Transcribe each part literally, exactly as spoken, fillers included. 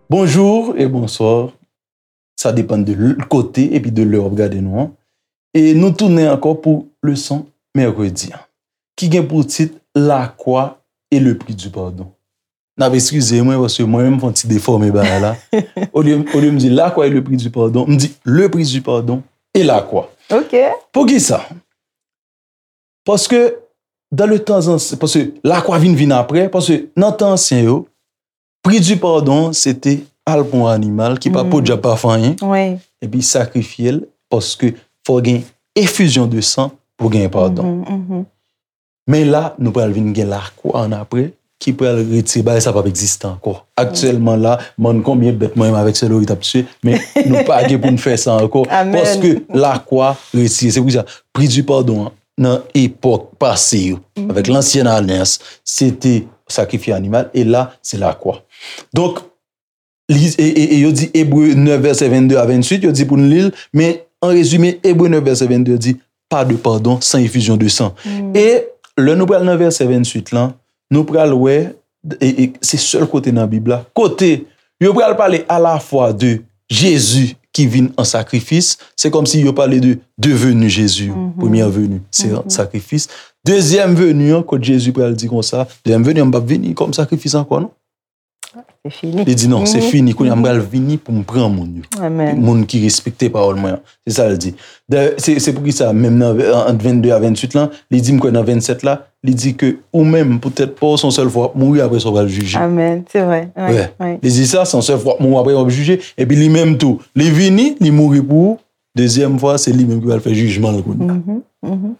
Bonjou e bonswa. Sa depann de l-, kote epi de lè w ap gade nou an. E nou tounen ankò pou leson mèkredi an, ki gen pou tit La croix et le prix du pardon. N ap eskize mwen, paske mwen menm m fè yon ti defòme bagay la. Olye, olye m di la croix et le prix du pardon, m di le prix du pardon et la croix. Ok. Poukisa? Paske dans le temps ancien, paske la croix vin vin apre, paske nan tan ansyen yo, prix du pardon se te al pran yon animal ki pa po dyab pa fè anyen, Wi. Epi sakrifye l, paske fò gen efizyon de san pou gen padon. Mhm, mhm. Men la, nou pral vin gen lakwa ann apre, ki pral retire bagay sa p ap egziste ankò. Aktyèlman la, m konn konbyen bèt mwen menm avèk sè Lori t ap tiye, men nou pa gen pou n fè sa ankò. Amen. Paske lakwa retire. Se pou sa, pri di padon an, nan epòk pase yo, avèk lansyen alyans, se te sakrifye animal, e la, se lakwa. Donk, li, e, e, e yo di Ebre nèf vèsè vennde a venntuit, yo di pou n li l, men an rezime, Ebre nèf vèsè vennde yo di, pas de pardon sans effusion de sang. E lè nou pral nan vèsè venntuit lan, nou pral wè, e, e, se sèl kote nan Bib la, kote yo pral pale alafwa de Jezi ki vin an sakrifis, se kòmsi yo pale de devenu Jezi, premyè veni, se sakrifis. Dezyèm veni an, kot Jezi pral di konsa, dezyèm veni an, m p ap vini kòm sakrifis ankò, non. Se fini. Li di, non, se fini. Kounye a m pral vini pou m pran moun yo. Amen. Moun ki respekte pawòl mwen an. Se sa l di. Dayè, se, se poukisa, menm nan, ant vennde a venntuit lan, li di, m kwè nan vennsèt la, li di ke ou menm, poutèt pa w, se yon sèl fwa w ap mouri, apre sa w pral jije. Amen. Se vre. Wi, Wè. Wi. Li di sa, se yon sèl fwa w ap mouri, apre w ap jije. Epi li menm tou, li vini, li mouri pou ou. Dezyèm fwa, se li menm ki pral fè jijman l kounye a. Mhm, mhm.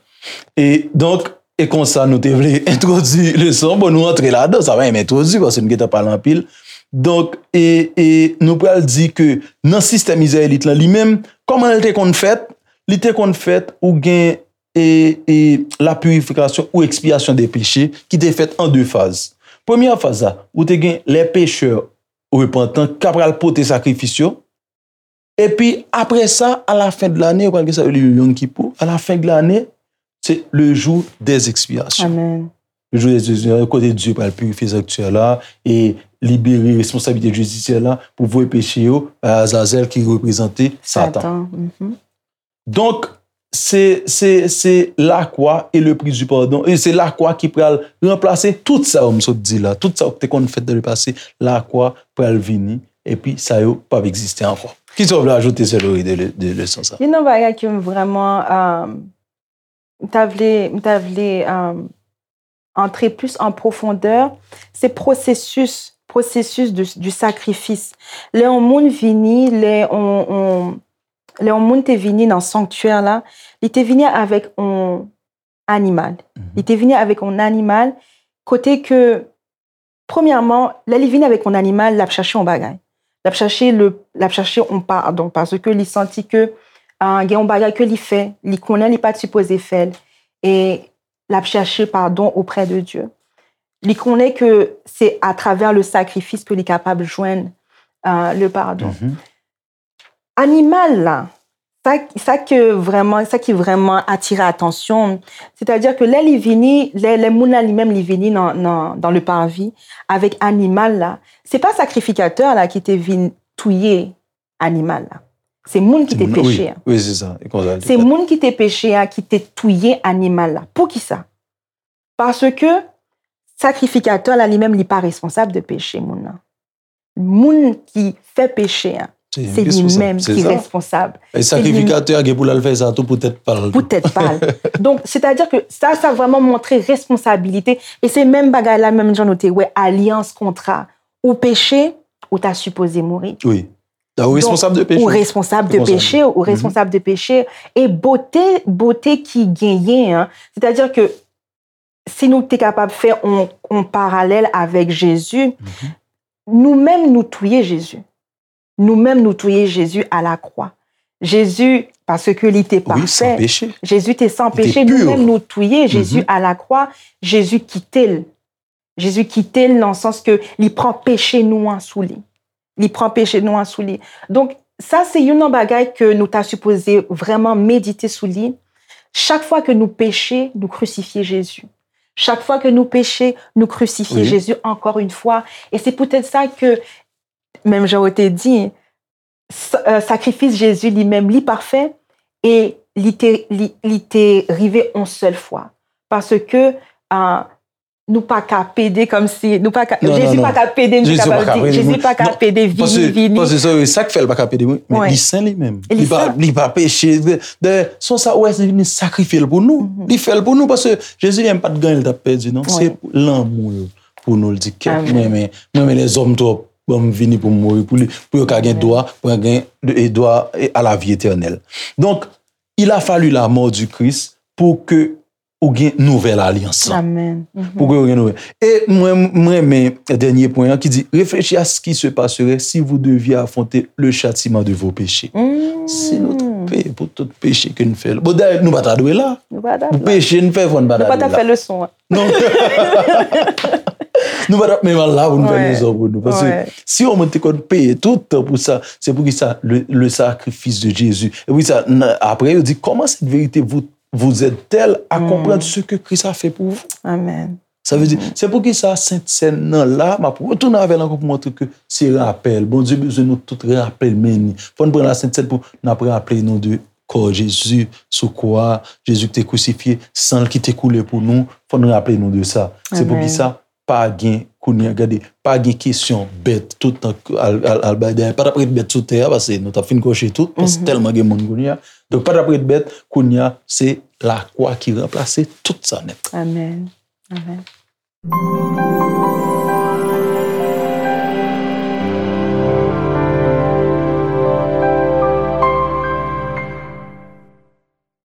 E donk, e konsa nou te vle entwodui leson. Bon, nou antre ladan, sa pa menm entwodui, paske nou gentan pale anpil. Donk, e, e nou pral di ke nan sistèm izrayelit lan, li menm, kòman l te konn fèt? Li te konn fèt, ou gen, e, e, la purifikasyon ou ekspyasyon de peche ki te fèt an de faz. Premyè faz la, ou te gen lè pechè repantan k ap pral pote sakrifis yo, epi apre sa, a la fen de lane, yo pral gen sa yo rele Yom Kippur. A la fen de lane, se le jour des expiations. Amen. Le jour des expiations, kote Dye pral pirifye sanktyè la e libere responsablite jidisyè la pou voye peche yo bay Azazèl ki reprezante Satan. Satan. Mhm. Donk, se, se, se lakwa e le pri di padon, e se lakwa ki pral ranplase tout sa yo m sot di la, tout sa yo ki te konn fèt dan le pase, lakwa pral vini, epi sa yo p ap egziste ankò. Kisa w vle ajoute, sè Lori, de, de leson sa? Youn nan bagay ke m vrèman, euh, m ta vle, m ta vle, euh, antre plis an pwofondè, se pwosesis, pwosesis de, du sakrifis. Lè yon moun vini, lè on, on, lè yon moun te vini nan sanktyè la, li te vini avèk on animal. Li te vini avèk on animal kote ke, premyèman, lè li vini avèk on animal, l ap chache on bagay. L ap chache le, l ap chache on padon, paske li santi ke, ah, gen on bagay ke li fè, li konnen li pa t sipoze fè l, e l ap chache padon oprè de Dye. Li konnen ke se atravè le sakrifis ke li kapab jwenn, ah, le padon. Animal la, sa, sa ke vrèman, sa ki vrèman atire atansyon m, sètadi ke lè li vini, lè, lè moun la li menm li vini nan, nan, dans le parvis avèk animal la, se pa sakrifikatè la ki te vin touye animal la. Se moun ki te Moun- wi, peche a. Wi, se sa. E konsa l te Se fèt. Moun ki te peche a ki te touye animal la. Poukisa? Paske sakrifikatè la li menm li pa responsab de peche moun nan. Moun ki fè peche a, Se se li responsab, menm se ki sa. responsab. E Se li sakrifikatè a gen pou l al fè sa tou pou tèt pa l. Pou tèt pa l. Donk, sètadi ke sa, sa vrèman montre responsabilite. E se menm bagay la, menm jan nou te wè, alyans, kontra. Ou peche, ou ta sipoze mouri. Wi. Donk, ou responsab de peche. Ou responsab de Responsab. peche, ou responsab de peche. E bote, bote ki genyen an, sètadi ke si nou te kapab fè on, on paralèl avèk Jezi, nou menm nou touye Jezi. Nou menm nou touye Jezi a la kwa. Jezi, paske li te Wi, san pafè, peche. Jezi te san Li te peche, nou pur. Menm nou touye Jezi a la kwa, Jezi kite l. Jezi kite l nan sans ke li pran peche nou an sou li. Li pran peche nou an sou li. Donk, sa se youn nan bagay ke nou ta sipoze vrèman medite sou li. Chak fwa ke nou peche, nou krisifye Jezi. Chak fwa ke nou peche, nou krisifye Jezi ankò yon fwa. E se poutèt sa ke, menm jan ou te di, sa- euh, sakrifis Jezi li menm, li pafè e li te, li, li te rive yon sèl fwa. Paske uh, nou pa ka pede kòmsi, nou pa ka, Jezi pa ka pede, nou kapab di, Jezi pa ka pede vini, vini. Paske sa, sa k fè l pa ka pede, wi, men li sen li menm. Li pa, li pa peche. Dayè, se sa, ou wè, li vini sakrifye l pou nou. Li fè l pou nou, paske Jezi li menm pa t gen anyen l t ap pèdi, non. Se lanmou l pou nou, l di, kèt, mwen renmen, mwen renmen lèzòm twòp, ban m vini pou m mouri pou li, pou yo ka gen dwa, pou yo gen dwa à la vie éternelle. Donc, il a fallu la mort du Christ pour que ou gen nouvèl alyans lan. Pou ke ou gen nouvèl. E mwen, mwen renmen dènye pwen an ki di, réfléchis à ce qui se passerait si vous deviez affronter le châtiment de vos péchés. Si nou te peye pou tout peche ke n fè. Bon, dayè, nou pa ta dwe la. Pou peche n fè, fò n pa ta dwe la. Nou pa ta fè leson an. Non. Nou pa ta menm al la pou n fè leson pou nou. Paske si yon moun te konn peye tout tan pou sa, c'est pour ça le, le sacrifice de Jésus. E pou sa, apre, yo di, comment cette vérité vous vous aide-t-elle à comprendre ce que Christ a fait pour vous? Amen. Sa vle di, se poukisa Sent Sèn nan la, m ap retounen avè l ankò pou montre ke se rapèl. Bondye bezwen nou tout raple l, men ni. Fò n pran la Sent Sèn pou n ap raple nou de kò Jezi sou kwa, Jezi ki te krisifye, san l ki te koule pou nou, fò n raple nou de sa. Se poukisa pa gen kounye a, gade, pa gen kesyon bèt tout tan al, al, al bay dèyè. Pa t ap ret bèt sou tè a, paske nou t ap fin kòche tout, paske tèlman gen moun kounye a. Donk, pa t ap ret bèt, kounye a, se lakwa ki ranplase tout sa nèt. Amen. Amen.